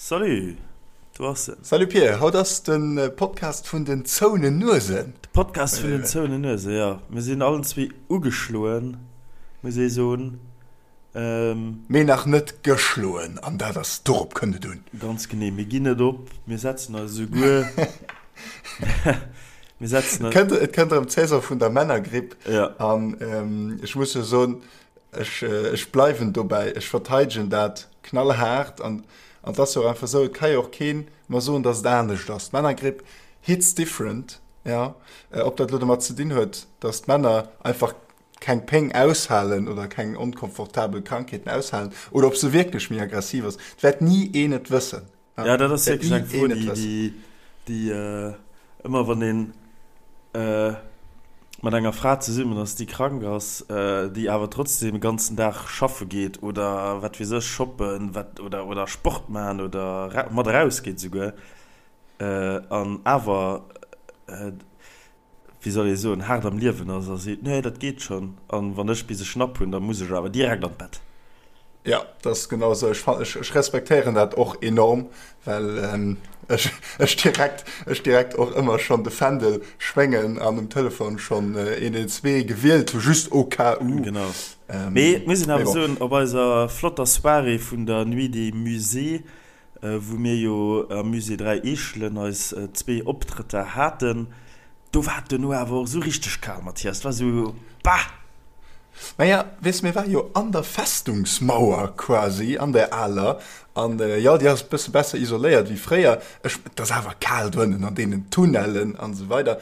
Salut, do ass en. Salut Pir, haut ass de Podcast vun den zouenen Nuesen. De Podcast vun den zouenen Nuesen, jo. Mir sinn allen zwee ugeschloen, muss ee soen. Mee nach net geschloen, an dat ass, dorop kënnt et un. Ganz genee, mir ginn net op, mir setzen eis esouguer, mir setzen eis. Et kënnt erëm d'Saison vun der Männergripp. Ja. An ech muss jo soen, ech, ech bleiwen dobäi, ech verteidegen dat knallhaart. An et ass jo och einfach esou, et ka jo och keen mer soen, datt et anescht ass. D'Männergripp hits different, jo. Ob dat elo domat ze dinn huet, datt d'Männer einfach keng Péng aushalen oder keng onkomfortabel Krankheeten aushalen oder ob se wierklech méi aggressiv ass, et wäert ni een et wëssen. Ja, dat ass wierklech eng Fro, déi, déi ëmmer wann een mat enger Fra zesummen ass, déi krank ass, déi awer trotzdem de ganzen Dag schaffe geet oder wat weess ech, shoppen, wat oder oder Sport maachen oder mat erausgeet esouguer an awer wéi soll ee soen, haart am Liewen ass a seet, nee, dat geet schonn, an wann ech bis e Schnapp hunn, da muss ech awer direkt an d'Bett. Jo, dat ass genau esou. Ech fan, ech, ech respektéieren dat och enorm, well ech, ech direkt, ech direkt och ëmmer schonn de Fändel schwéngen an um Telefon schonn 112 gewielt hu, just au cas où. Genau. Mee et muss een awer soen, op eiser flotter Soirée vun der Nuit des Musées, wou mir jo am Musée 3 Eechelen eis zwee Optrëtter haten, do war et duerno awer och esou richteg kal, Mathias. Et war esou, bah! Naja, weess, mir ware jo an der Festungsmauer quasi, an der aler, an jo, déi ass e bësse besser isoléiert wéi fréier. Ech, et ass awer kal doënnen an deenen Tunnellen an esou weider.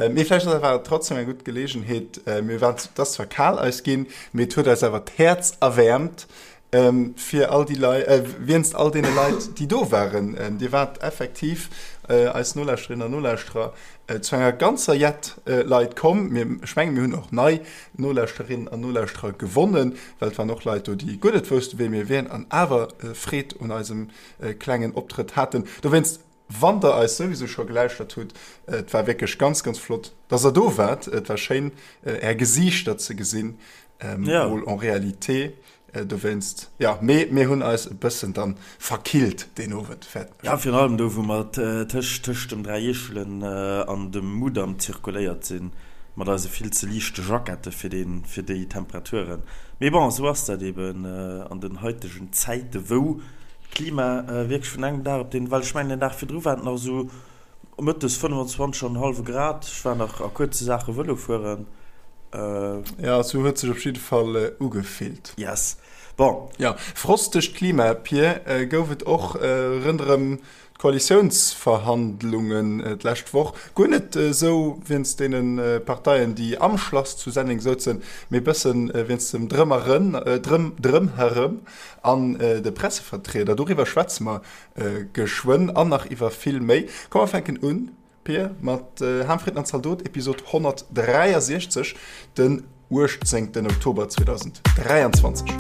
Mee vläicht ass awer trotzdem eng gutt Geleegenheet, mir waren, et ass zwar kal eis ginn, mee et huet eis awer d'Häerz erwäermt, Fir all déi Leit, wéinst all deene Leit, déi do waren. Dir waart effektiv, eis Nolauschterinnen an Nolauschterer, zu enger ganzer Jett Leit komm. Mir, ech mengen, mir hunn och nei Nolauschterinnen an Nolauschterer gewonnen, well et waren och Leit do, déi guer net woussten, wee mir wieren an awer Freed un eisem klengen Optrëtt haten. Dowéinst Wann der eis souwisou scho gelauschtert hutt, et war wierklech ganz, ganz flott, dass der do waart. Et war schéin, är Gesiichter ze gesinn, mol en réalité. Dowéinst, jo, mee mir hunn eis e bëssen dann verkillt deen Owend, fäerten ech. Jo, virun allem do, wou mer tëscht tëscht dem Dräi Eechelen an dem Mudam zirkuléiert sinn, mat eise vill ze liichte Jackette fir dee fir déi Temperaturen. Mee bon, esou ass dat eben an den haitegen Zäite, wou D'Klima wierklech vun engem Dag op deen, well ech mengen den Dag virdru war et nach esou mëttes 25 an e hallwe Grad, ech war nach a kuerze Saache Vëlo fueren. Jo, esou huet sech op jidde Fall ugefillt. Yes, bon. Jo, frostegt Klima, Pir, gouf et och rënderëm D'Koalitiounsverhandlungen d'lescht Woch, guer net esou wéinst deene Parteien, déi am Schlass zu Senneng souzen, mee bësse wéinst dem Drëmherëm an de Pressevertrieder. Doriwwer schwätze mer geschwënn an nach iwwer vill méi. Komm mer fänken un, Pir, mat Ham, Fritten an Zaldot, Episod 163, den 18 Oktober 2023.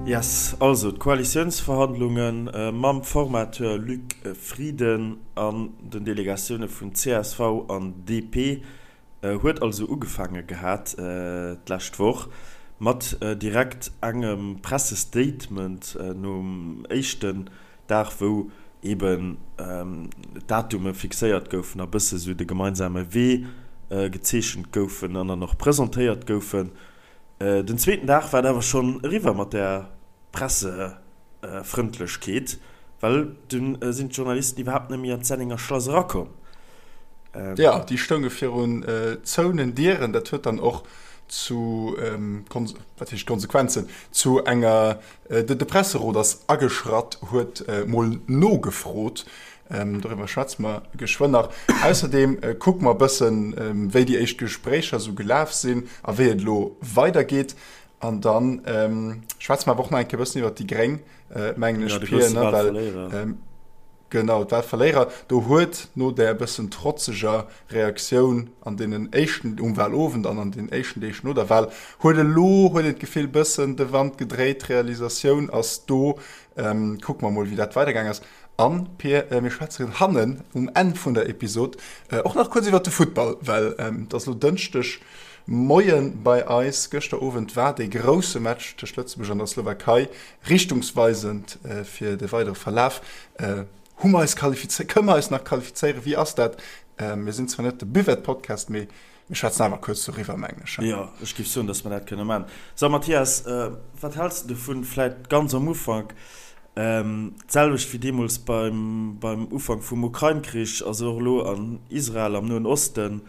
Yes, also d'Koalitiounsverhandlunge mam Formateur Luc Frieden an den Delegatioune vun csv an DP Huet also ugefaange gehat d'lescht Woch mat direkt engem Pressestatement nom éischten Dag, wou eben d'Datume fixéiert goufen a bësse sou de gemeinsame Wee gezeechent goufen an dann och presentéiert goufen. Den zweeten Dag war et awer schonn eriwwer mat där Pressefrëndlechkeet, well dunn sinn d'Journalisten iwwerhaapt net méi an d'Sennenger Schlass erakomm. Jo, déi stounge virun zouenen Dieren. Dat huet dann och zu, wat heescht Konsequenzen, zu enger, de Presserot ass ageschratt, huet mol nogefrot. Doriwwer schwätze mer geschwënn nach. Ausserdeem kucke mer e bëssen, wéi déi éischt Gespréicher esou gelaf sinn a wéi et elo weidergeet. An da schwätze mer awer och nach eng Kéier e bëssen iwwer déi Gréng, mengen ech, Pir, ne? Well, genau, d'Wahlverléierer. Do huet no där e bëssen trotzeger Reaktioun an deenen éischten, um Wahlowend an an den éischten Deeg no der Wahl, huet elo, huet een d'Gefill, bëssen de Wand gedréit. D'Realisatioun ass do. Kucke mer mol, wéi dat weidergaang ass. An, Pir, mir schwätzen hannen um Enn vun der Episod och nach kuerz iwwert de Futtball, well et ass elo Dënschdeg Moie bei eis. Gëschter Owend war dee grousse Match tëscht Lëtzebuerg an der Slowakei richtungsweisend fir de weidere Verlaf. Hu mer eis qualifizéiert? Kënne mer eis nach qualifizéieren? Wéi ass dat? Mir sinn zwar net de Buvette-Podcast, mee mir schwätzen awer kuerz doriwwer, mengen ech. Jo, ech géif soen, datt mer dat kënne maachen. So, Mathias, wat häls de dovun, vläicht ganz am Ufank, d'selwecht wéi deemools beim, beim Ufank vum Ukrain-Krich, ass och elo an Israel, am Noen Osten,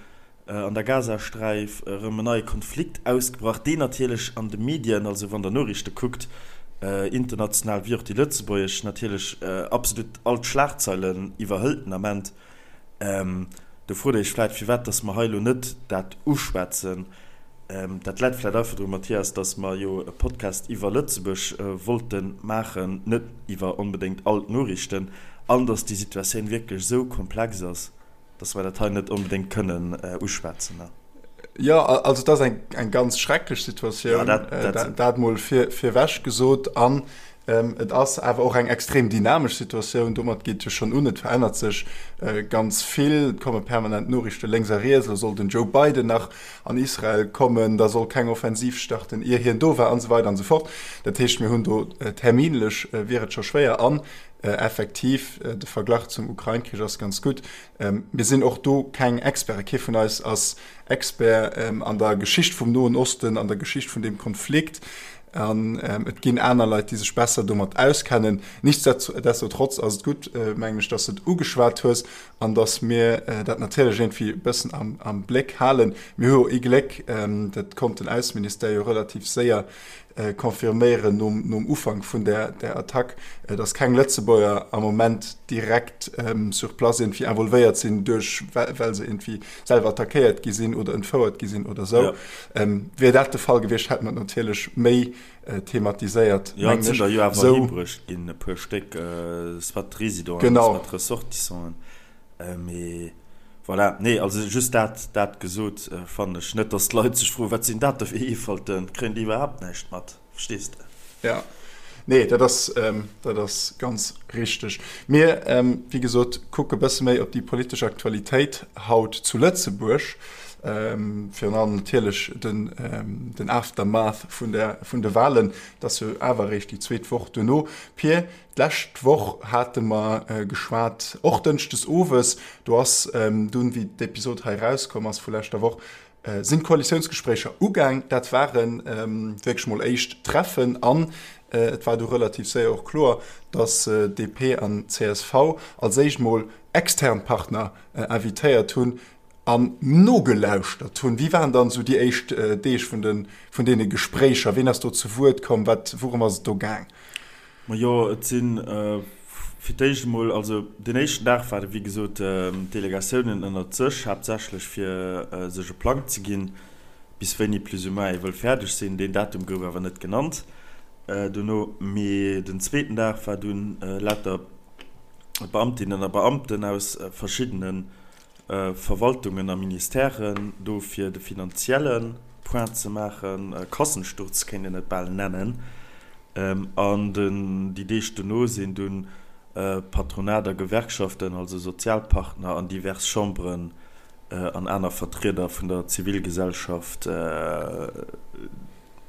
an der Gazasträif erëm en neie Konflikt ausgebrach, deen natierlech an de Medien, also wann Der Noriichte kuckt, international wéi och déi lëtzebuergesch, natierlech absolut all d'Schlagzeilen iwwerhëlt den Ament. Do frot Der Iech vläit, firwat dass mer hei elo net dat uschwätzen. Dat läit vläit einfach drun, Mathias, dass mer jo e Podcast iwwer Lëtzebuerg wollte maachen, net iwwer onbedéngt all d'Noriichten, an dass déi Situatioun wierklech esou komplex ass, dass mer dat hei net onbedéngt kënnen uschwätzen. Jo, also et ass eng ganz schrecklech Situatioun, dat mol virewech gesot. An et ass awer och eng extrem dynamesch Situatioun. Domat geet et jo schonn un, et verännert sech ganz vill, et komme permanent Noriichte lénks a riets. Elo soll den Joe Biden nach an Israel kommen, da soll keng Offensiv starten, ier hien do war an esou weider an esou fort. Dat heescht, mir hunn do terminlech wier et scho schwéier. An effektiv, de Verglach zum Ukrain-Krich ass ganz gutt. Mir sinn och do keng Experten. Kee vun eis ass Expert an der Geschicht vum Noen Osten, an der Geschicht vun deem Konflikt. An et ginn aner Leit, déi sech besser domat auskennen. Nichtsdestotrotz ass et gutt, mengen ech, dass de et ugeschwat hues an dass mir dat natierlech iergendwéi e bëssen am Bléck halen. Mir hu jo ee Gléck, dat konnt den Ausseministère jo relativ séier confirméieren nom Ufank vun där Attack, dass keng Lëtzebuerger am Moment direkt sur place iergendwéi involvéiert sinn, duerch well se iergendwéi selwer attackéiert gi sinn oder entfouert gi sinn oder esou. Wier dat de Fall gewiescht, hätt mer et natierlech méi thematiséiert, mengen ech. Jo, et sinn der jo awer heembruecht ginn, e puer Stéck, soit Résidenten, soit Ressortissanten. Mee voilà, nee, also just dat, dat gesot, fannen ech net, dass d'Leit sech froen, wat sinn dat da fir Eefalten, kréien déi iwwerhaapt näischt mat, verstees de? Ja, nee, dat ass, dat ass ganz richteg. Mir, wéi gesot, kucke bësse méi op déi politesch Aktualitéit haut zu Lëtzebuerg, virun allem natierlech den, den Aftermath vun der, vun de Wahlen, dat ass jo awer eréischt déi zweet Woch duerno. Pir, D'lescht Woch hate mer geschwat, och dënschdes owes, do ass dunn, wéi d'Episod hei erauskomm ass vu leschter Woch, sinn d'Koalitiounsgespréicher ugaang. Dat ware wierklech mol éischt Treffen an et war du relativ séier och kloer, datt DP an csv als éischt mol extern Partner invitéiert hunn an nogelauschtert hunn. Wéi waren dann esou déi éischt Deeg vun de vun deene Gespréicher? Ween ass do zu Wuert komm? Wat, wourëm ass et do gaang? Majo, et si fir d'éischt emol, also deen éischten Dag ware wéi gesot d'Delegatiounen ënnert sech, haaptsächlech fir sech e Plang ze ginn, bis wéini plus ou moins ee wëll fäerdeg sinn. Deen Datum gouf awer net genannt dono. Mee den zweeten Dag war dunn lauter Beamtinnen a Beamten aus verschiddene Verwaltungen a Ministèren do fir de finanzielle Point ze maachen, Kassensturz kéint een et bal nennen. An déi Deeg dono sinn dunn Patronat a Gewerkschaften, also Sozialpartner an divers Chamberen an aner Vertrieder vun der Zivilgesellschaft,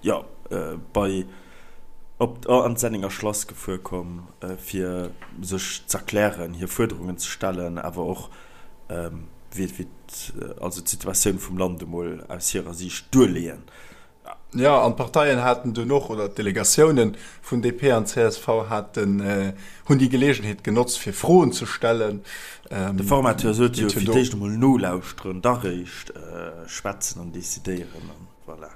jo, bei op an d'Senninger Schlass gefuer komm, fir sech z'erklären, hir Fuerderungen ze stellen, awer och wéi wéi also d'Situatioun vum Land emol aus hirer Siicht duerleeën. Jo, an d'Parteien haten dunn och, oder d'Delegatiounen vun DP an csv haten, hunn déi Geleegenheet genotzt, fir Froen ze stellen. De Formateur sot jo, fir d'éischt emol nolauschteren, da réischt schwätzen an decidéieren. Voilà.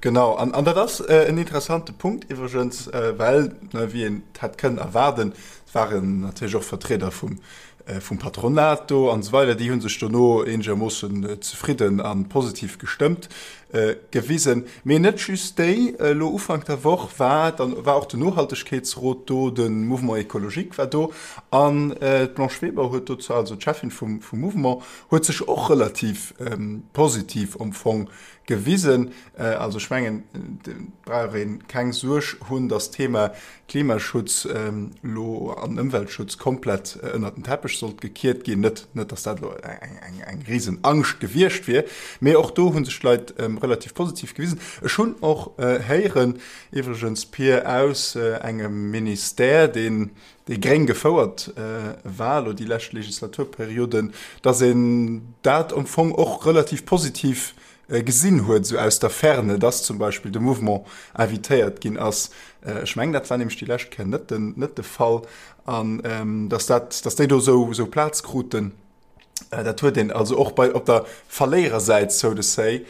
Genau, an, an dat ass äh, en interessante Punkt iwwregens, äh, well, ne, wéi een et hätt kënnen erwaarden, et waren natierlech och Vertrieder vum, äh, vum Patronat do an esou weider, déi hu sech dono eenegermoossen zefridden a positiv gestëmmt. Gewisen. Mee net just déi. Elo Ufank der Woch war dann war och den Nohaltegkeetsrot do, de Mouvement écologique war do an d'Blanche Weber huet dozou, also d'Cheffin vum vum Mouvement, huet sech och relativ positiv am Fong gewisen. Also ech mengen, et brauch ee keng Suerg hunn, datt d'Thema Klimaschutz elo an Ëmweltschutz komplett ënnert den Teppech sollt gekiert ginn. Net, net datt dat elo eng, eng risen Angscht gewiescht wier, mee och do hu sech d'Leit relativ positiv gewisen. Ech hunn och héieren, iwwregens Pir, aus engem Ministère, deen déi gréng gefouert war elo déi lescht Legislaturperioden, datt een dat am Fong och relativ positiv gesinn huet, esou aus der Ferne, dass zum Beispill de Mouvement invitéiert ginn ass. Ech mengen, dat war nämlech déi lescht Kéier net den, net de Fall. An dass dat, dass déi do esou, esou Plaz kruten, dat huet een also och bei, op der Verléierersäit, so to say,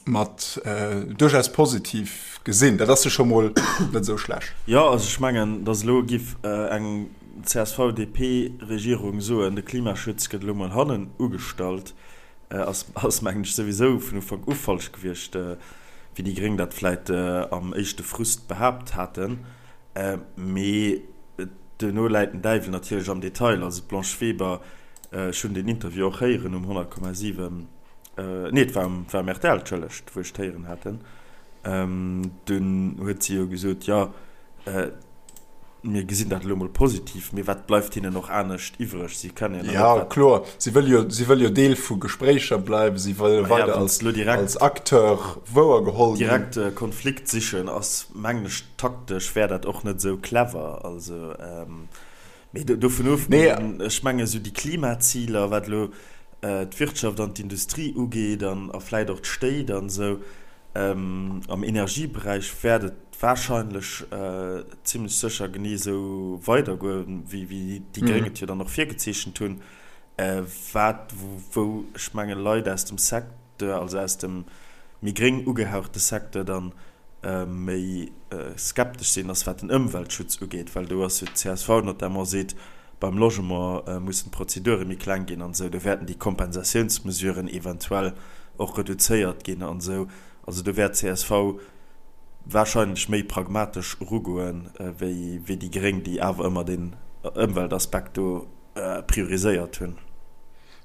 mat duerchaus positiv gesinn. Dat ass jo scho mol net esou schlecht. Jo, also ech mengen, dass elo giff eng CSV-DP-Regierung soen, de Klimaschutz gëtt elo mol hannen ugestallt, Ass, ass mengen ech souwisou vun Ufank u falsch gewiescht, wéi déi Gréng dat vläit am éischte Frust behaapt haten. Mee duerno läit den Däiwel natierlech am Detail. Also d'Blanche Weber, ech hunn deen Interview och héieren um 100,7, nee et war um, war um rtl, entschëllegt, wou ech et héieren haten, dunn huet si jo gesot, jo, Mir gesinn dat elo mol positiv, mee wat bleift hinnen och anescht iwwreg? Si kënnen jo net. Jo, kloer, si wëlle jo, si wëlle jo Deel vu Gespréicher bleiwen, si wëlle weider als, als Acteur wouergeholl ginn. Direkt Konflikt sichen ass, mengen ech, taktesch wär dat och net esou clever. Also, mee dovun ofgesinn, ech mengen esou déi Klimaziler, wat elo d'Wirtschaft an d'Industrie ugeet an a vläit och d'Stéit an esou, am Energieberäich wäert et wahrscheinlech zimlech sécher genee esou weidergoen, wéi déi Gréng et jo dann och virgezeechent hunn, wat, wou ech mengen, Leit aus dem Secteur, also aus dem méi gréng ugehauchte Secteur dann méi skeptesch sinn, ass wat den Ëmweltschutz ugeet, well do ass jo d'CSV notamment seet, beim Logement mussen d'Prozedure méi kleng ginn an esou, do wäerten déi Kompensatiounsmesuren eventuell och reduzéiert ginn an esou. Also do wäert csv wahrscheinlech méi pragmatesch erugoen, wéi déi Gréng, déi awer ëmmer den Ëmweltaspekt do prioriséiert hunn.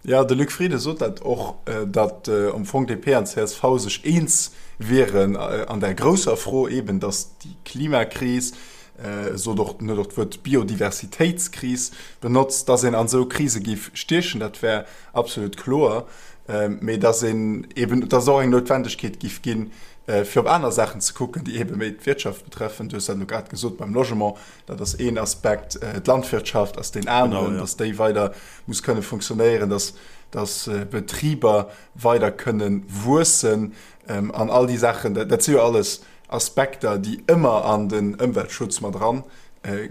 Jo, de Luc Frieden sot dat och, datt am Fong DP an csv sech eens wieren an där grousser Fro eben, datt déi Klimakris, e sot och, en huet och d'Wuert Biodiversitéitskris benotzt, datt een an esou Krise géif stiechen, dat wär absolut kloer, mee datt een eben, datt et och eng Noutwendegkeet géif ginn, fir op aner Saachen ze kucken, déi ebe méi d'Wirtschaft betreffen. Du hues dat elo grad gesot beim Logement, dat ass een Aspekt, d'Landwirtschaft ass deen aneren, datt déi weider muss kënne funktionéieren, datt, datt Betriber weider kënne wuessen an all déi Saachen. Dat si jo alles Aspekter, déi ëmmer an den Ëmweltschutz mat eran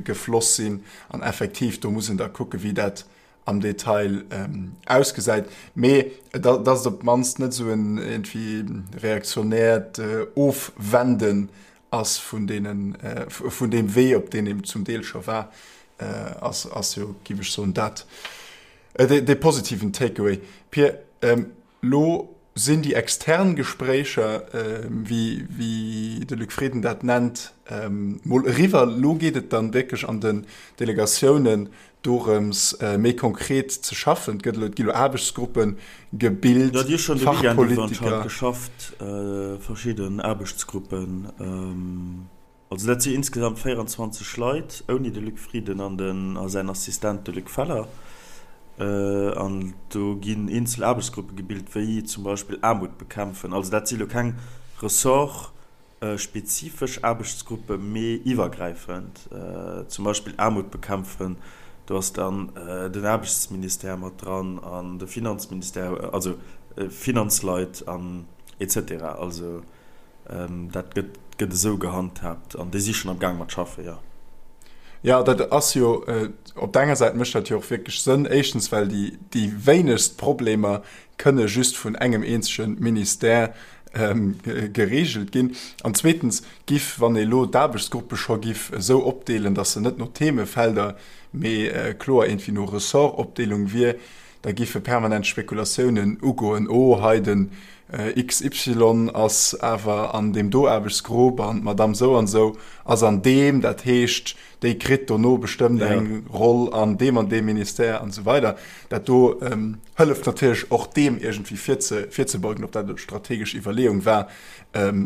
gefloss sinn. An effektiv, do muss een da kucken, wéi dat am Detail ausgesäit, mee dass et op d'mannst net esou en iergendwéi reaktionäert Ofwenden ass vun deenen, vun deem Wee, op deen een zum Deel scho war, ass, ass jo, géif ech soen, dat dee positiven Takeaway. Pir, Lo sinn déi extern Gespréicher, wéi de Luc Frieden dat nennt, mol eriwwer. Lo geet et dann wierklech an den Delegatiounen dorëms, méi konkret ze schaffen. Et gëtt elo, et gi lo Aarbechtsgruppe gebilt, Jo, déi hu schonn de Weekend iwwer anscheinend geschafft, verschidden Aarbechtsgruppen. Also dat si insgesamt 24 Leit, ouni de Luc Frieden an den a säin Assistent de Luc Feller. An do ginn eenzel Aarbechtsgruppe gebilt, wéi zum Beispill Aarmut bekämpfen. Also dat si lo keng ressortspezifesch Aarbechtsgruppe, mee iwwergräifend. Zum Beispill Aarmut bekämpfen, do ass dann den Aarbechtsministère mat dran an de Finanzministère, also Finanzleit an et cetera. Also Dat gëtt gëtt esou gehandhaabt an déi si schonn am Gaang mat schaffen, jo. Jo, dat ass jo, op der enger Säit mécht dat jo och wierklech Sënn. Éischtens, well déi déi wéinegst Problemer kënne just vun engem eenzege Ministère geregelt ginn. An zweetens giff, wann ee lo d'Aarbechtsgruppe scho giff esou opdeelen, datt se net no Themefelder, mee kloer iergendwéi no Ressortopdeelung wier, Da giffe permanent Spekulatiounen ugoen, oh hei den XY ass awer an deem do Aarbechtsgrupp an d'Madame sou an sou ass an deem, dat heescht déi kritt dono bestëmmt eng Roll an deem an deem Ministère an esou weider. Dat do hëlleft natierlech och deem iergendwéi virzebeugen, ob dat elo strategesch Iwwerleeung war,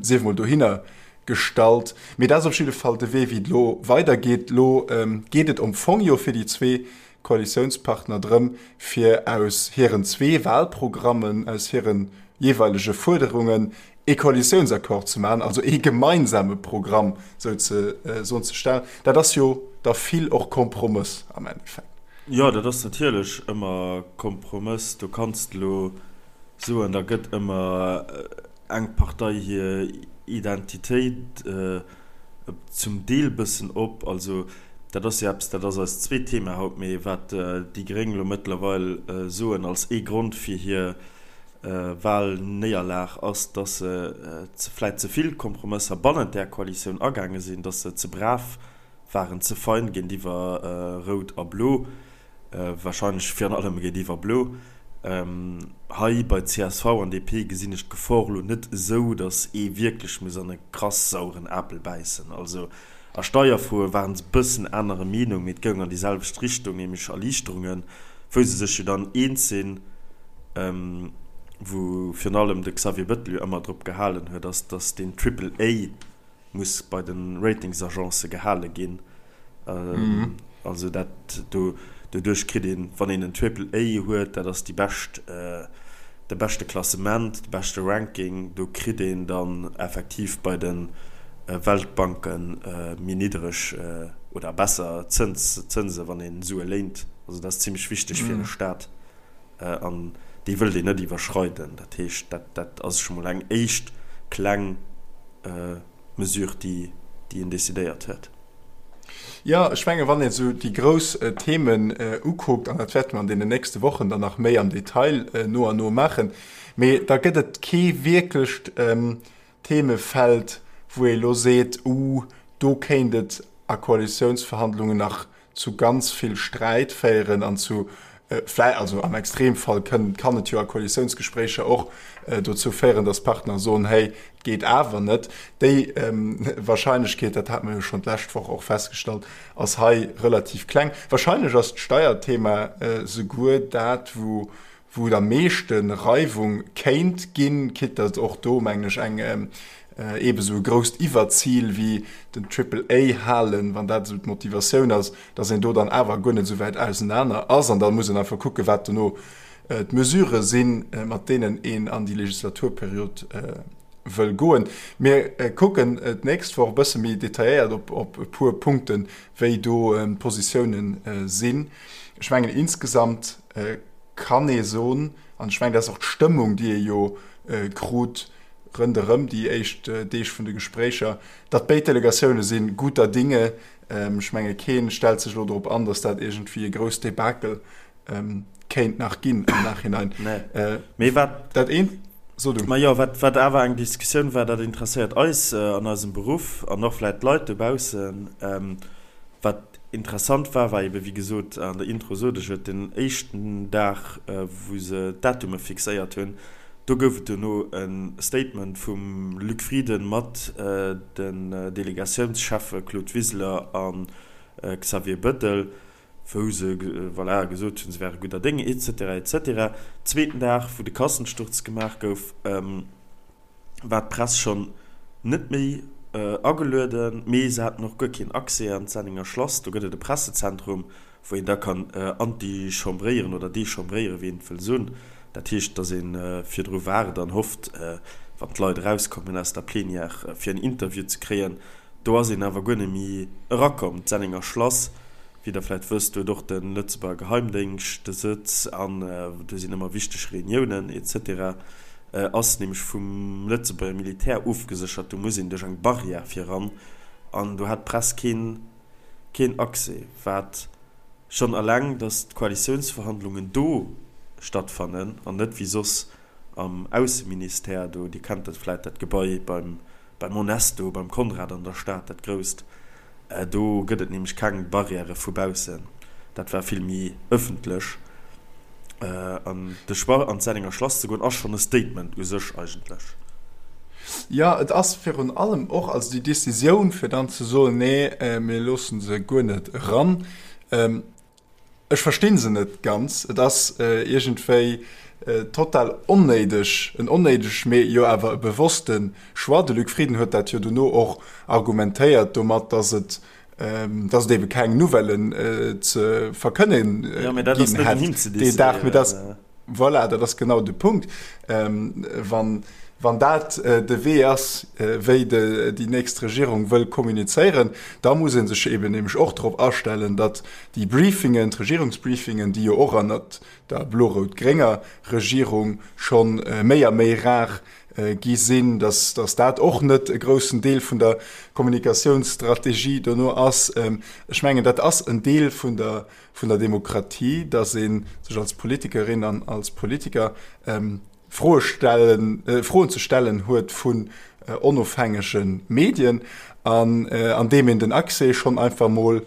sief emol dohinner gestallt. Mee dat ass op jidde Fall de Wee wéi et elo weidergeet. Elo geet et am Fong jo fir déi zwee Koalitiounspartner drëm, fir aus hiren zwee Wahlprogrammen, aus hire jeeweilege Fuerderungen ee Koalitiounsaccord ze maachen, also ee gemeinsame Programm souzesoen ze stellen. Dat ass jo da vill och Kompromëss am Endeffekt. Jo, dat ass natierlech ëmmer Kompromëss. Do kanns de elo soen, da gëtt ëmmer eng Partei hir Identitéit zum Deel bëssen op. Also dat ass jo eppes, dat ass eist zweet Thema haut, mee wat déi Gréng elo mëttlerweil soen als ee Grond fir hir Wahlnéierlag ass, datt se vläit ze vill Kompromësser bannent där Koalitioun agaange sinn, datt se ze brav waren, ze fein géintiwwer Rout a Blo. Wahrscheinlech virun allem géintiwwer Blo. Hei bei csv an DP gesinn ech d'Gefor elo net esou, datt ee wierklech muss an e krass saueren Apel bäissen. Also a Steierfroe waren se bëssen anerer Meenung, mee et goung an déi selwecht Richtung, nämlech Erliichterungen, wou se sech jo dann eens sinn, wou virun allem de Xavier Bettel jo ëmmer drop gehalen huet, ass, datt deen Triple A muss bei de Ratingsagencë gehale ginn. Also dat do, doduerch kritt een, wann een en Triple A huet, dat ass déi bescht, de beschte Klassement, de beschte Ranking, do kritt een dann effektiv bei de Weltbanke méi niddereg oder besser Zëns, Zënse wann een Sue léint. Also dat ass zimmlech wichteg fir e Staat an déi wëllt een net iwwerschreiden. Dat heescht, dat, dat ass scho mol eng éischt kleng Mesure, déi, déi een decidéiert huet. Jo, ech mengen, wann een esou déi grouss Themen ukuckt, an dat wäerte mer an deenen nächste Wochen dann nach méi am Detail no an no maachen, mee da gëtt et kee wierklecht Themefeld, wou ee elo seet, Uh, do kéint et a Koalitiounsverhandlungen nach zu ganz vill Sträit féieren an zu vläi also am Extremfall kënn kann et jo a Koalitiounsgespréicher och dozou féieren, datt Partner soen, hey, et geet awer net. Déi Wahrscheinlechkeet, dat hate mer jo schonn d'lescht Woch och festgestallt, ass hei relativ kleng. Wahrscheinlech ass d'Steierthema souguer dat, wou wou et am meeschte Reiwung kéint ginn, quitte datt och do, mengen ech, eng eebe sou e grousst Iwwerzil wéi den Triple A halen, wann dat esou d'Motivatioun ass, datt een do dann awer guer net esou wäit ausenaner ass. An da muss een einfach kucken, wat dono d'Mesurë sinn, mat deenen een an déi Legislaturperiod wëll goen. Mir kucken d'nächst Woch e bësse méi detailléiert op e puer Punkten, wéi do d'Positiounen sinn. Ech mengen insgesamt kann ee soen, an ech mengen, dat ass och d'Stëmmung, déi ee jo krut ronderëm déi éischt Deeg vun de Gespréicher, datt béid Delegatioune si guter Dinge. Ech menge kee stellt sech elo drop an, datt dat iergendwéi e grousst Debakel kéint nach ginn am Nachhinein. Mee wat. Dat eent, so du. Majo, wat, wat awer eng Diskussioun war, dat interesséiert eis an eisem Beruff an och vläicht d'Leit dobaussen, wat Interessant war, war eben, wéi gesot, an der Intro sot ech et, den éischten Dag, wou se d'Datume fixéiert hunn, do gouf et duerno e Statement vum Luc Frieden mat den Delegatiounscheffe Claude Wiseler a Xavier Bettel, wou se, voilà, gesot hunn, se wäre gudder Dénge, et cetera, et cetera. Zweeten Dag, wou de Kassensturz gemaach gouf, war d'Press schonn net méi agelueden, mee se haten och guer keen Accès an d'Sennenger Schlass. Do gëtt et e Pressezentrum, wou een da kann antichambréieren oder dechambréieren, wéi een et wëll soen. Dat heescht, datt ee virdru waart an hofft, wann d'Leit erauskommen aus der Plenière, fir en Interview ze kréien. Do ass een awer guer net méi erakomm. D'Sennenger Schlass, wéi Der vläicht wësst, huet och de Lëtzebuerger Geheimdéngscht de Sëtz an do sinn ëmmer wichteg Reuniounen et cetera. Ass nämlech vum Lëtzebuerger Militär ofgeséchert, do muss een duerch eng Barrière fir eran an do hat d'Press keen keen Accès. Wat schonn eleng, datt d'Koalitiounsverhandlungen do stattfannen an net wéi soss am Ausseministère do, Dir kennt dat vläit, dat Gebai beim beim Onesto, beim Conrad an der Stad, dat grousst, do gëtt et nämlech keng Barrièrë vu baussen, dat war vill méi ëffentlech. An de Choix an d'Sennenger Schlass ze goen ass schonn e Statement u sech eigentlech. Jo, et ass virun allem och, also déi Decisioun fir dann ze soen, nee mir loosse se guer net eran, ech versti se net ganz. Et ass iergendwéi total onnéideg, en onnéideg, mee jo awer e bewosste Choix. De Luc Frieden huet dat jo dono och argumentéiert domat, datt et datt et ebe keng Nouvellen ze verkënne ginn hätt deen Dag. Mee dat, voilà, dat ass genau de Punkt. Wann, wann dat de Wee ass, wéi déi nächst Regierung wëll kommunizéieren, da muss ee sech eben nämlech och drop astellen, datt déi Briefingen, d'Regierungsbriefingen, déi jo och ënnert der blo-rout-grénger Regierung scho méi a méi rar gi sinn, dass dass dat och net e groussen Deel vun der Kommunikatiounsstrategie dono ass. Ech mengen, dat ass en Deel vun der vun der Demokratie, dass ee sech als Politikerin an als Politiker Froe stellen, Froen ze stellen huet vun onofhängege Medien. An andeem een den Accès schonn einfach mol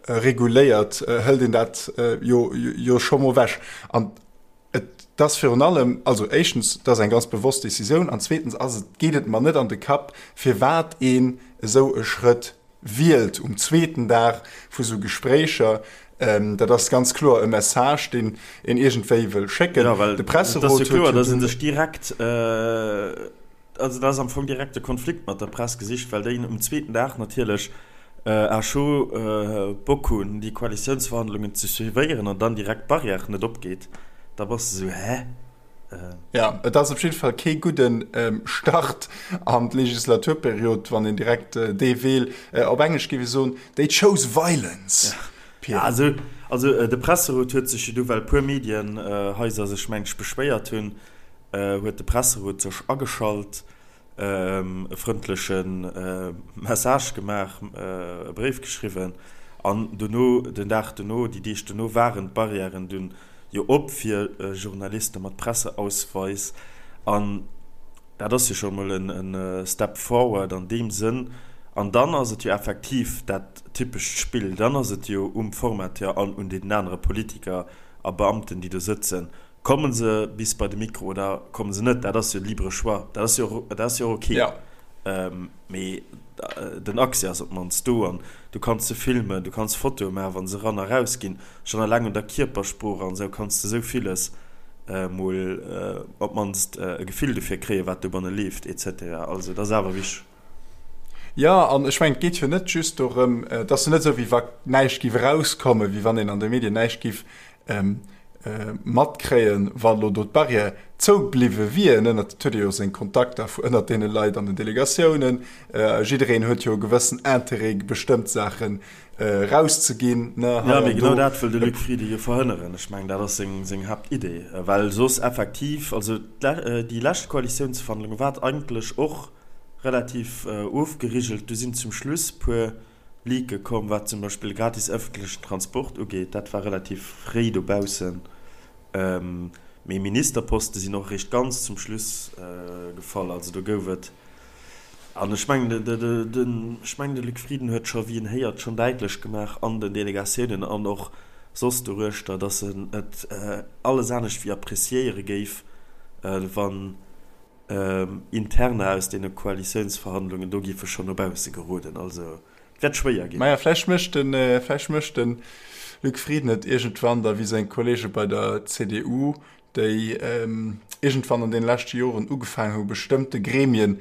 reguléiert, hëlt een dat jo jo scho mol ewech. An Et ass virun allem, also éischtens, et ass eng ganz bewosst Décisioun an zweetens ass et, geet et mer net an de Kapp, firwat een esou e Schrëtt wielt um zweeten Dag vu sou Gespréicher. Dat ass ganz kloer e Message, deen een iergendwéi wëll schécken. Jo, well et ass jo kloer, datt ee sech direkt, Also dat ass am Fong direkt de Konflikt mat der Press gesicht, well déi um zweeten Dag natierlech à chaud Bock hunn, déi Koalitiounsverhandlungen ze suivéieren an dann direkt d'Barrière net opgeet. Da bass de sou, Hä? Jo, et ass op jidde Fall kee gudde Start an d'Legislaturperiod, wann een direkt dee Wee, op Englesch géif ee soen, they chose violence, Pierre. Also, also de Presserot huet sech jo du, well e puer Medienhaiser sech, meng ech, beschwéiert hunn, huet de Presserot sech ageschalt, e frëndleche Message gemaach, e Bréif geschriwwen an dono, den Dag dono, déi Deeg dono waren d'Barrièren dunn jo op fir Journaliste mat Presseausweis an dat ass jo scho mol e Step forward an deem Sënn. An dann ass et jo effektiv dat typescht Spill, dann ass et jo um Formateur an un deenen anere Politiker a Beamten, déi do sëtzen, Kommen se bis bei de Mikro oder kommen se net, dat ass jo libre choix, dat ass jo och, dat ass jo och ok. Ja. Mee den Accès ass op d'mannst do an du kanns se filmen, du kanns Fotoe maachen, wa se eran a raus ginn. Schonn eleng un der Kierpersprooch an esou kanns de esou villes mol op d'mannst e Gefill dofir kréien, wat dobanne leeft et cetera. Also dat ass awer wichteg. Jo, an ech mengen, et geet jo net just dorëm, et ass jo net esou, wéi wa näischt géif erauskommen, wéi wann een an de Medien näischt géif matkréien, wa lo do d'Barrière zou bliwwe wier. Ënnert, et huet ee jo seng Kontakter ënnert deene Leit an den Delegatiounen, jiddereen huet jo e gewëssen Interêt, bestëmmt Saachen erauszeginn, ne, hei an do. Jo, mee genau dat wëll de Luc Frieden jo verhënneren. Ech mengen, dat ass seng Haaptidee, well soss effektiv, also déi lescht Koalitiounsverhandlunge war et eigentlech och relativ ofgerigelt, do sinn zum Schluss puer Leake komm, wat zum Beispill gratis ëffentlechen Transport ugeet, dat war relativ fréi dobaussen. Mee Ministerposte sinn och eréischt ganz zum Schluss gefall. Also do gouf et, an ech mengen, ech mengen de Luc Frieden huet scho, wéi een héiert, schonn däitlech gemaach an den Delegatiounen an och soss doruechter, datt en et alles anescht wéi appreciéiere géif, wann Interna aus deene Koalitiounsverhandlungen do géife schonn no bausse geroden. Also et wäert schwéier ginn. Maja, vläicht mécht de, vläicht mécht de Luc Frieden et iergendwann da wéi seng Kollege bei der CDU, déi iergendwann an deene leschte Joren ugefaangen hu bestëmmte Gremien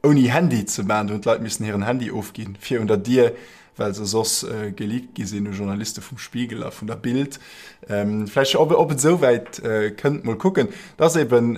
ouni Handy ze maachen. Do hunn d'Leit missen hiren Handy ofginn fir un der Dier, well se soss geleakt gi sinn u Journaliste vum Spiegel a vun der Bild. Vläicht, ob et esou wäit kënnt, mol kucken. Et ass eben,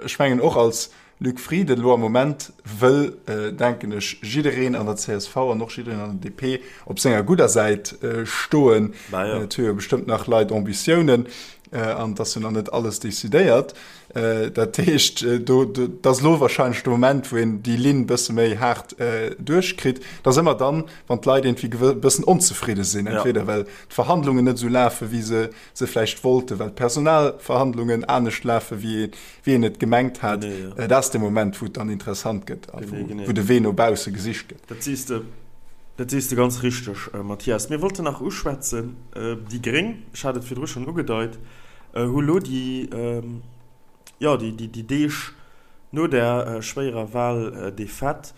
ech mengen och als Luc Frieden elo am Moment wëll, denken ech, jiddereen an der csv an och jiddereen an der DP op senger gudder Säit stoen. Et hu jo bestëmmt nach Leit Ambitiounen an et ass jo nach net alles decidéiert. Dat heescht, do, dat ass elo wahrscheinlech de Moment, wou een déi Linn e bësse méi haart duerchkritt. Dat ass ëmmer dann, wann d'Leit iergendwéi e bëssen onzefridde sinn, entweder well d'Verhandlungen net esou lafen, wéi se se vläicht wollten, well d'Personalverhandlungen anescht lafen, wéi een et gemengt hat. Dat ass de Moment, wou et dann interessant gëtt a wou de Wee no bausse gesicht gëtt. Dat sees de, dat sees de ganz richteg, Mathias. Mir wollten nach uschwätzen, déi Gréng, ech hat et virdru schonn ugedeit. Hu lo déi, jo, déi Deeg no där schwéierer Wahldefaite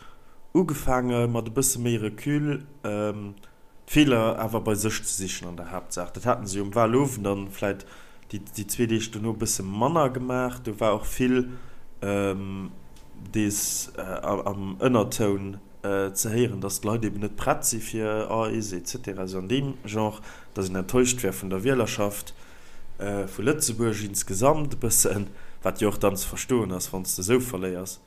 ugefaange mat e bësse méi Recul d'Feeler awer bei sech ze sichen an der Haaptsaach. Dat haten se jo um Wahlowend an vläit déi zwee Deeg dono e bësse manner gemaach. Do war och vill dees am Ënnertoun ze héieren, dass d'Leit eben net prett si fir eis et cetera, esou an deem Genre, dass een enttäuscht wär vun der Wielerschaft vu Lëtzebuerg insgesamt e bëssen, wat jo och dann ze verstoen ass, wann s de esou verléiers.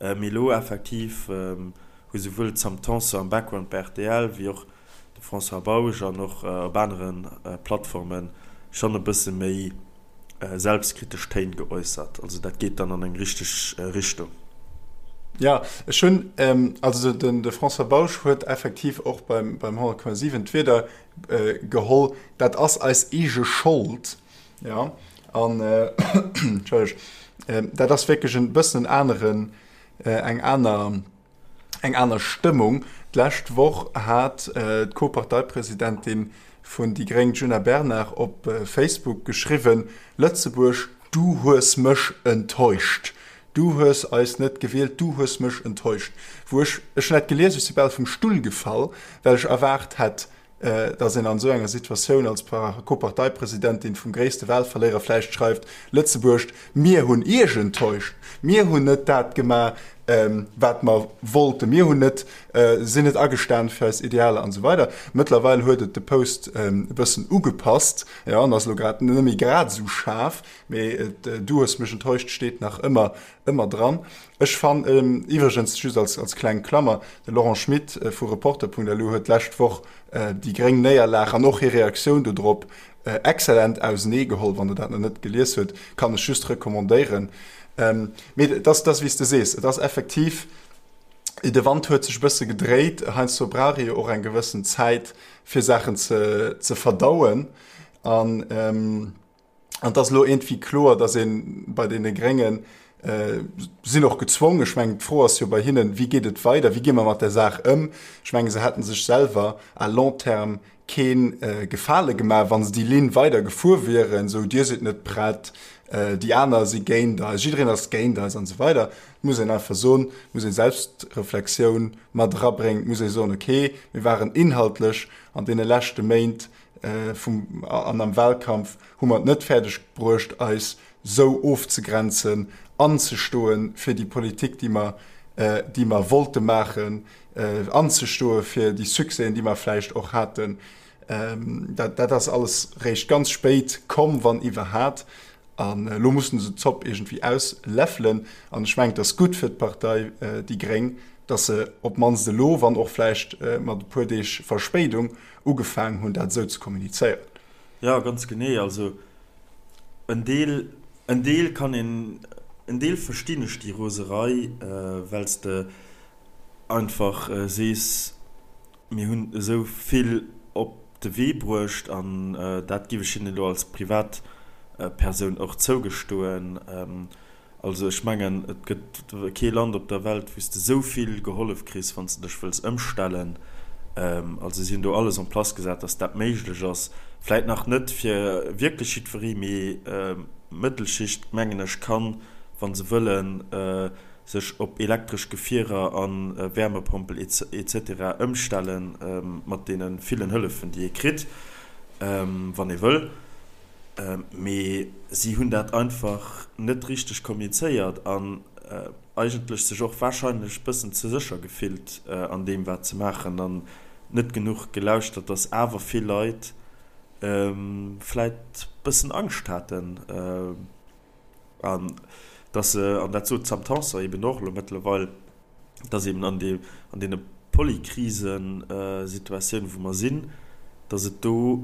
Mee elo effektiv hu souwuel d'Sam Tanson am Background bei rtl wéi och de François Bausch an och op anere Plattforme schonn e bësse méi selbstkritesch Téin geäussert. Also dat geet dann an eng richteg Richtung. Jo, ech hunn, also de François Bausch huet effektiv och beim 100,7 d'Wierder geholl, dat ass eis eege Schold. Jo, an, Entschëlleg, dat ass wierklech e bëssen en aneren, eng aner, eng aner Stëmmung. D'lescht Woch hat d'Co-Parteipresidentin vun déi gréng, d'Djuna Bernard, op Facebook geschriwwen, Lëtzebuerg, du hues mech enttäuscht. Du hues eis net gewielt, du hues mech enttäuscht. Wou ech, ech hunn dat gelies, ech si bal vum Stull gefall, well ech erwaart hätt, dass een an esou enger Situatioun als Co-Parteipresidentin vum gréisste Wahlverléierer vläicht schreift, Lëtzebuerg, mir hunn Iech enttäuscht, mir hunn net dat gemaach, wat mer wollten, mir hunn net, sinn net agestan fir eis Idealer an esou weider. Mëttlerweil huet et de Post e bëssen ugepasst, jo, an ass elo grad net méi grad esou schaarf, mee et, du hues mech enttäuscht steet nach ëmmer, ëmmer dran. Ech fann iwwregens, just als kleng Klammer, de Laurent Schmit vu Reporter.lu huet d'lescht Woch déi gréng Néierlag an och hir Reaktioun dodrop excellent ausenee geholl. Wann Der dat nach net gelies hutt, kann ech just recommandéieren. Mee et ass, wéi s de sees, et ass effektiv, de Wand huet sech e bësse gedréit. Heiansdo brauch ee jo och eng gewëssen Zäit, fir Saachen ze verdauen. An An et ass elo iergendwéi kloer, datt ee bei deene Gréngen, sinn och gezwongen, ech mengen d'Fro ass jo bei hinnen, wéi geet et weider, wéi gi mer mat där Saach ëm? Ech mengen, se hätte sech selwer à long terme kee Gefale gemaach, wa se déi Linn weider gefuer wieren, esou Dir sidd net prett, déi aner si géint eis, jiddereen ass géint eis an esou weider. Et muss een einfach soen, et muss ee Selbstreflexioun mat erabréngen, et muss ee soen, okay, mir waren inhaltlech an deene leschte Méint vum an am Wahlkampf hu mer et net fäerdeg bruecht eis sou ofzegrenzen, anzestoe fir déi Politik déi mer déi mer wollte maachen, anzestoe fir déi Succèsen déi mer vläicht och haten. Dat dat ass alles réischt ganz spéit komm, wann iwwerhat. An elo mussen se d'Zopp iergendwéi ausläffelen. An ech mengen, et ass gutt fir d'Partei déi gréng, datt se op d'mannst elo, wann och vläicht mat e puer Deeg Verspéidung, ugefaangen hunn, dat esou ze kommunizéieren. Jo, ganz genee. Also en Deel, en Deel kann een, en Deel verstinn ech déi Roserei, well s de einfach sees, Mir hunn esou vill op de Wee bruecht an dat géif ech hinnen elo als Privatpersoun och zougestoen. Also ech mengen, et gëtt kee Land op der Welt, wou s de esou vill gehollef kriss, wann s de dech wëlls ëmstellen. Also si hunn do alles en place gesat, datt dat méiglech ass. Vläit nach net fir wierklech jiddweree, mee d'Mëttelschicht, mengen ech, kann, wa se wëllen, sech op elektresch Gefierer a Wärmepompel etc. Ëmstelle mat deene villen Hëllefen, déi ee kritt, wann ee wëll. Mee si hunn dat einfach net richteg kommunizéiert an eigentlech sech och warscheinlech bëssen ze sécher gefillt an deem, wat se maachen an net genuch gelauschtert, dass awer vill Leit vläit bëssen Angscht haten. An dass se, an dat sot d'Sam Tanson eben och elo mëttlerweil, dass eben an deem, an deene Polykrisesituatiounen, wou mer sinn, dass et do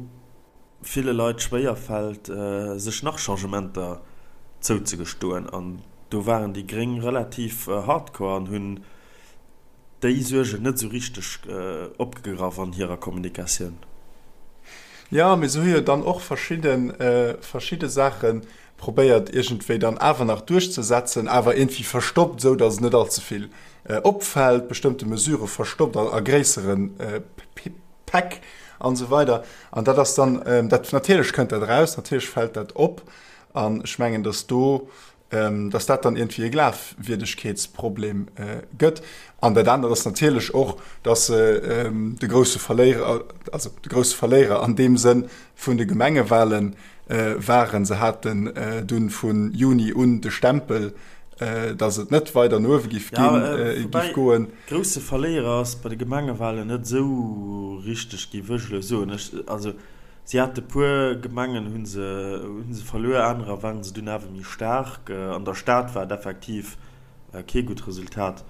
ville Leit schwéierfält, sech nach Changementer zouzegestoen. An do waren déi Gréng relativ hardcore an hunn déi Suergen net esou richteg opgegraff an hirer Kommunikatioun. Jo, mee se hu jo dann och verschidde, verschidde Saache probéiert iergendwéi dann awer nach duerchzesetzen, awer iergendwéi verstoppt, esou datt et net allze vill opfält, bestëmmte Mesurë verstoppt a gréissere Päck. an esou weider. An dat ass dann, dat natierlech kënnt dat eraus, natierlech fält dat op. An ech mengen, datt do, datt dat dann iergendwéi e Glafwierdegkeetsproblem gëtt. An dat anert ass natierlech och, datt se de grousse Verléierer, also de grousse Verléierer an deem Sënn vun de Gemengewahlen waren. Se haten dunn vu Juni un de Stempel, datt et net weider no uewe giff ginn, giff goen. Grousse Verléierer ass bei de Gemengewahlen net esou richteg, giff ech elo soen. Ech, also si hate puer Gemengen hu se, hu se verluer, anerer waren se dunn awer méi staark. An der Stad war et effektiv kee gutt Resultat,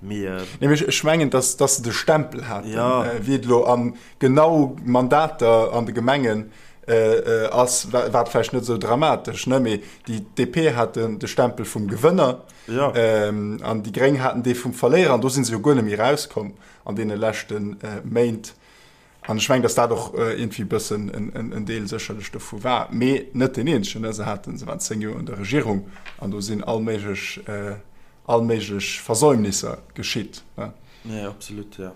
mee. Nee, mee ech mengen, datt, datt se de Stempel haten, wéi et elo an genau Mandater an de Gemengen ass, war et vläicht net esou dramatesch, ne, mee déi DP hat de Stempel vum Gewënner. Ja. An déi Gréng haten dee vum Verléierer an do si se jo guer net méi erauskomm an deene leschte Méint. An ech mengen, datt dat och iergendwéi e bëssen en Deel sécherlech dovu war, mee net deen eenzegen. Se haten, se waren 10 Joer un der Regierung an do sinn all méiglech, all méiglech Versäumnisser geschitt. Nee, absolut, jo.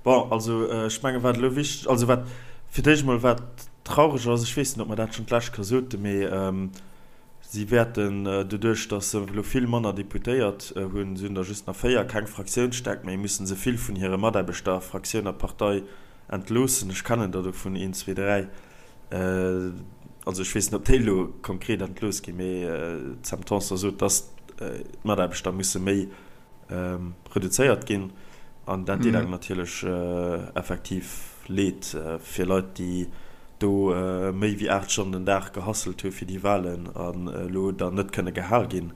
Bon, also ech mengen, wat elo wichteg, also wat fir d'éischt emol wat traureg ass, ech weess net, ob mer dat schonn d'lescht Kéier soten, mee Si wäerten, doduerch datt se elo vill manner Deputéiert hunn, si hunn der just nach 4, keng Fraktiounsstäerkt méi, mussen se vill vun hire Mataarbechter, Fraktioun a Partei, entloossen. Ech kennen der dovun een, zwee, dräi. Also ech weess net, ob déi elo konkret entlooss ginn, mee d'Sam Tanson sot, datt d'Mataarbechter musse méi reduzéiert ginn an dat deet engem natierlech effektiv leed fir Leit, déi do méi wéi 8 Stonnen den Dag gehasselt hu fir déi Wahlen an elo dann net kënne gehal ginn.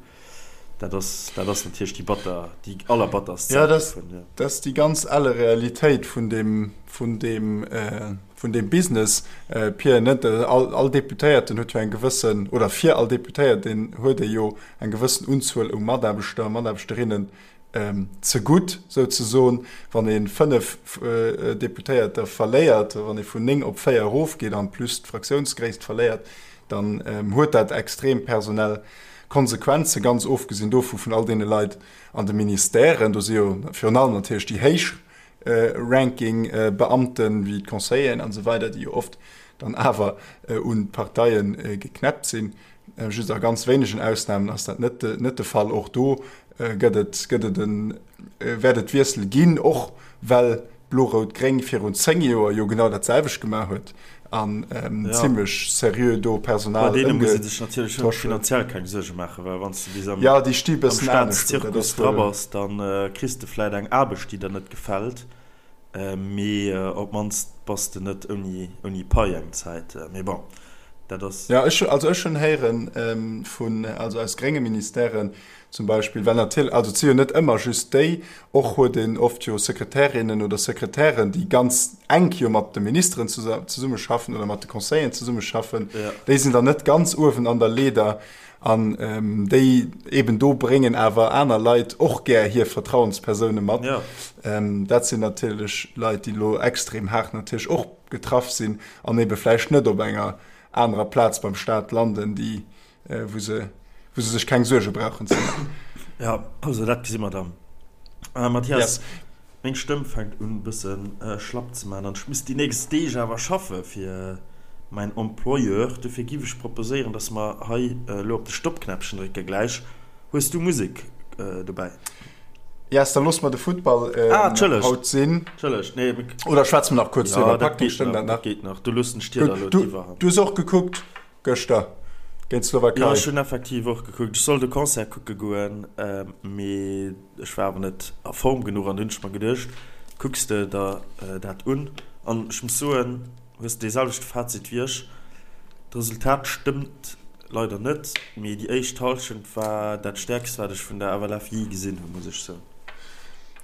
Dat ass, dat ass natierlech déi batter, déi allerbatterst Säit dovun, jo. Dat ass déi ganz elle Realitéit vun deem, vun deem, vun deem Business, Pir, net? All, all Deputéierten huet jo eng gewëssen, oder fir all Deputéierten huet ee jo eng gewëssen Unzuel u Mataarbechter a Mataarbechterinnen zegutt, souzesoen. Wann ee 5 Deputéierter verléiert, wann ee vun 9 op 4 erofgeet an plus d'Fraktiounsgréisst verléiert, dann huet dat extrem personell Konsequenzen, ganz ofgesinn dovu vun all deene Leit an de Ministèren. Do si jo virun allem natierlech déi héich Ranking Beamten, wéi d'Conseilleren an esou weider, déi jo oft dann awer un d'Parteie geknäppt sinn. Just a ganz wéinegen Ausnamen ass dat net net de Fall. Och do gëtt et gëtt et en wäert et Wiessel ginn, och well Blo-Rout-Gréng virun 10 Joer jo genau dat selwecht gemaach huet an zimlech seriö do Personal Bei deene muss ee sech natierlech och finanziell keng Suerge maachen, well wann s de bis am Ja, déi sti bëssen anescht do, dat ass Staatszirkus dra wuel. bass, da kriss de vläit eng Aarbecht, déi der net gefält, mee op d'mannst bass de net ouni ouni Pai eng Zäit. Mee bon, dat ass. Ja, ech, also ech hunn héieren vun, also aus grénge Ministèren zum Beispill, well natierlech, also et si jo net ëmmer just déi, och huet een oft jo Sekretärinnen oder Sekretären, déi ganz enk jo mat de Ministeren zesummeschaffen oder mat de Conseilleren zesummeschaffen, déi sinn dann net ganz uewen an der Leeder an déi eben do bréngen awer aner Leit och gär hir Vertrauenspersoune mat. Dat sinn natierlech Leit, déi elo extrem haart natierlech och getraff sinn an ebe vläicht net op enger anerer Plaz beim Staat landen, déi wou se, wou se sech keng Suerge brauchen ze maachen. Ja, also dat gesi mer dann. Äh, Mathias, yes. meng Stëmm fänkt un bëssen äh, schlapp ze man an ech muss déi nächst Deeg awer schaffe fir mäin Employeur. Dofir giff ech proposéieren, dass mer hei elo op de Stoppknäppchen drécke gläich. Hues du Musek äh, dobäi? Yes, dann loosse mer de Futtball äh, ah, haut sinn. Entschëllegt, nee. Oder schwätze mer nach kuerz ja, driwwer? Dat geet nach, dat geet nach. Du loossen ech dir da elo d'Iwwerhand. Du hues och gekuckt? Gëschter géint d'Slowakei. Jo, ech hunn effektiv och gekuckt. Ech sollt e Concert kucke goen, mee ech war awer net a Form genuch an du hunn ech mer geduecht, kucks de der dat un. An ech muss soen, hues de dee selwechte Fazit wéi ech, d'Resultat stëmmt leider net, mee déi éischt Hallschent war dat stäerkst wat ech vun der FLF jee gesinn hunn, muss ech soen.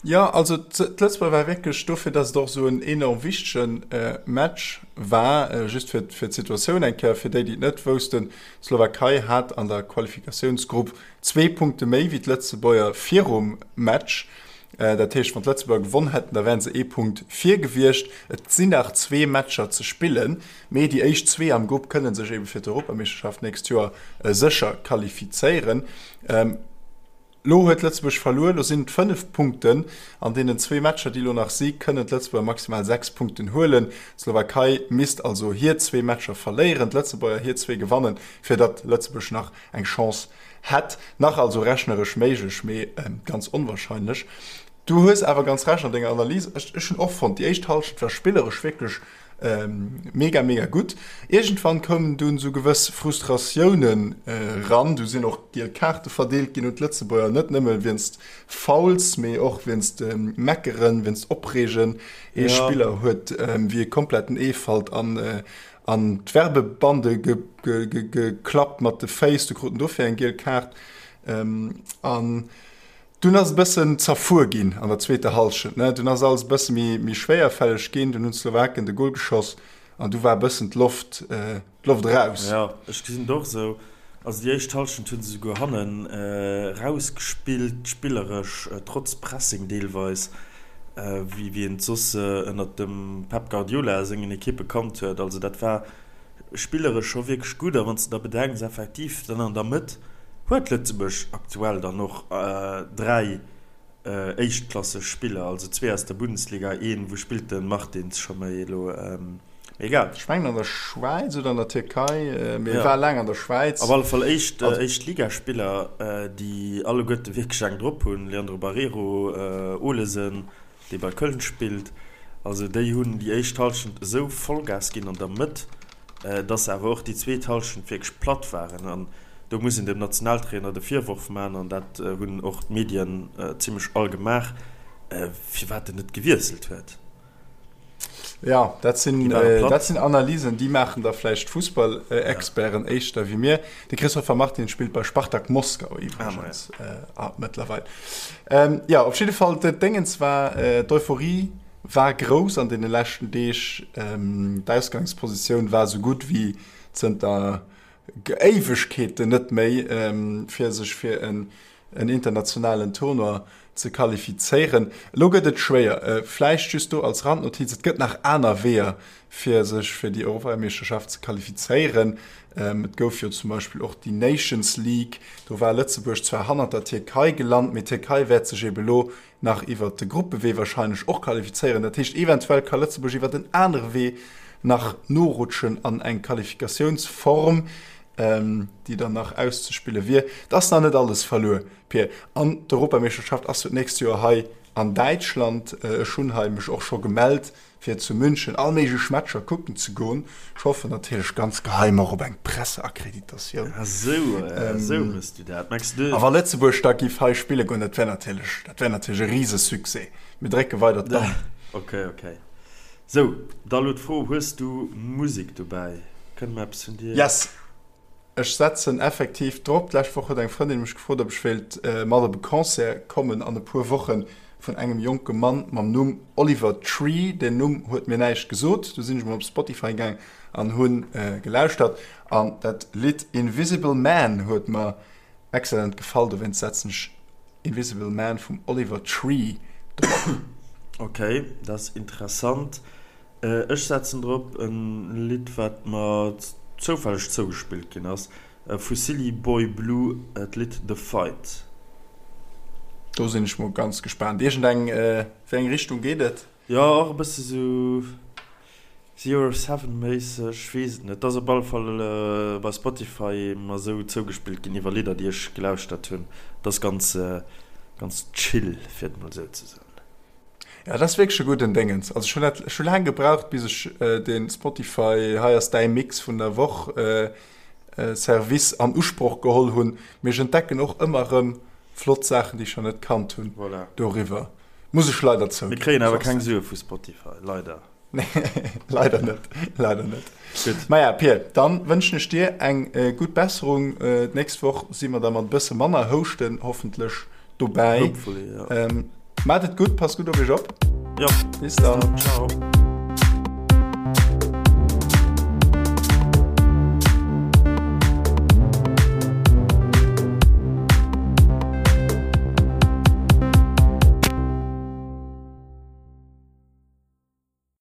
Jo, also d'Lëtzebuerger war wierklech dofir, datt et och esou en enorm wichtege Match war, just fir fir d'Situatioun eng Kéier fir déi, déi et net woussten, D'Slowakei hat an der Qualifikatiounsgrupp zwee Punkte méi wéi d'Lëtzebuerger virum Match. Dat heescht, wann d'Lëtzebuerger gewonn hätten, da wären se ee Punkt vir gewiescht. Et sinn nach zwee Matcher ze spillen, mee déi éischt zwee am Grupp kënne sech ebe fir d'Europameeschterschaft d'nächst Joer sécher qualifizéieren. Lo huet Lëtzebuerg verluer, lo sinn et 5 Punkten. An deenen zwee Matcher, déi lo nach si, kënnen d'Lëtzebuerger maximal 6 Punkten huelen. D'Slowakei misst also hir zwee Matcher verléieren, d'Lëtzebuerger hir zwee gewannen, fir datt Lëtzebuerg nach eng Chance hätt. Nach also rechneresch méiglech, mee ganz onwarscheinlech. Du hues awer ganz Recht an denger Analys. Ech hunn och fonnt, déi éischt Hallschent war spilleresch wierklech Mega mega gutt. Iergendwann koumen dunn sou gewëss Frustratiounen ran. Du sinn och giel Kaarte verdeelt ginn un d'Lëtzebuerger, net nëmme wéinst Fouls, mee och wéinst Meckeren, wéinst Opreegen. Ee Spiller huet wéi e kompletten Eefalt an an d'Werbebande geklappt mat de Féiss, du krut en dofir eng giel Kaart. An Dunn ass et e bëssen zerfuer ginn an der zweeter Hallschent, ne? Dunn ass alles e bësse méi, méi schwéierfälleg ginn. Dunn hunn d'Slowaken de Gol geschoss an du war e bëssen d'Loft, d'Loft eraus. Jo, ech gesinn et och esou. Also déi éischt Hallschent hu se souguer hannen erausgespillt, spilleresch, trotz Pressing deelweis, wéi, wéi een et soss ënnert dem Pep Guardiola sengen Ekippe kannt huet. Also dat war spilleresch scho wierklech gutt. A wann s de da bedenks, effektiv dann an der Mëtt huet Lëtzebuerg aktuell dann och 3 éischtklasseg Spiller, also zwee aus der Bundesliga, een, wou spillt de Martins scho méi elo, mee egal. Ech mengen an der Schwäiz oder an der Tierkei, mee e war laang an der Schwäiz. Op alle Fall éischt, Éischtligaspiller, déi alleguerte wierklech eng drop hunn, Leandro Barreiro, Olesen, dee bei Köln spillt, also déi hunn déi éischt Hallschent esou Vollgas ginn an der Mëtt, dass se awer och déi zweet Hallschent wierklech platt waren. An do muss een dem Nationaltrainer de Virworf maachen, an dat hunn och d'Medien zimmlech all gemaach, firwat en net gewiesselt huet. Jo, dat sinn, dat sinn Analysen, déi maachen da vläicht Fussballexperten éischter wéi mir. De Christopher Martin spillt bei Spartak Moskau iwwregens mëttlerweil. Jo, op jidde Fall, d'Déngens war, d'Euphorie war grouss an deene leschten Deeg. D'Ausgangspositioun war esou gutt wéi zënter Éiwegkeeten net méi, fir sech fir en internationalen Tournoi ze qualifizéieren. Elo gëtt et schwéier. Vläicht just do als Randnotiz, Et gëtt nach aner Weeër, fir sech fir déi Europameeschterschaft ze qualifizéieren. Et gouf jo zum Beispill och déi Nations League. Do war Lëtzebuerg zwar hannert der Tierkei gelant, mee d'Tierkei wäert sech ebe lo nach iwwert de Gruppewee warscheinlech och qualifizéieren. Dat heescht, eventuell ka Lëtzebuerg iwwert en anere Wee nach norutschen an eng Qualifikatiounsform, déi dann nach auszespille wier. Et ass nach net alles verluer, Pir. An d'Europameeschterschaft ass jo d'nächst Joer hei an Däitschland. Ech hunn hei mech och scho gemellt, fir zu München all méiglech Matcher kucken ze goen. Ech hoffen natierlech ganz geheim och op eng Presseakkreditatioun. Ah sou, sou hues du dat. Mengs du. A wa Lëtzebuerg da giff hei spille goen, dat wär natierlech, dat wär natierlech e Risesuccès. Mir drécke weider d'Daumen. Ok, ok. Sou, da lo d'Fro, Hues du Musek dobäi? Kënne mer eppes vun dir? Yes! Ech setzen effektiv drop. D'lescht Woch huet eng Frëndin mech gefrot, ob ech wéilt mat op e Concert kommen an e puer Wochen vun engem jonke Mann mam Numm Oliver Tree. Den Numm huet mir näischt gesot. Du sinn ech mol op Spotify gaang an hu gelauschtert an dat Lidd Invisible Man huet mer excellent gefall. Dowéinst setzen ech Invisible Man vum Oliver Tree drop. Ok, dat ass interessant. Ech setzen drop en Lidd wat mer zoufälleg zougespillt ginn ass, vu Silly Boy Blue, d'Lidd The Fight. Do sinn ech mol ganz gespaant. Iergend eng, wéi eng Richtung geet et? Jo, och e bësse sou Zero Seven méisseg, ech weess et net. Et ass op alle Fall bei Spotify mer sou zougespillt ginn iwwer Lidder déi ech gelauschtert hunn. Et ass ganz, ganz chill, fir et mol sou ze soen. Ja, dat ass wierklech e gudden Déngens. Also ech hunn dat, ech hu laang gebraucht, bis ech de Spotify Hei ass däi Mix vun der Woch Service an Usproch geholl hunn. Mee ech entdecken och ëmmer erëm flott Saachen, déi ech nach net kannt hunn doriwwer. Muss ech leider zouginn. Mir kréien awer keng Sue vu Spotify, leider. Nee, leider net, leider net. Gutt. Maja, Pir, dann wënschen ech dir eng gutt Besserung. D'nächst Woch si mer da mat e bësse manner Houschten hoffentlech dobäi. Hopefully, ja. Maacht et gutt, passt gutt op iech op. Jo. Bis dann. Ciao.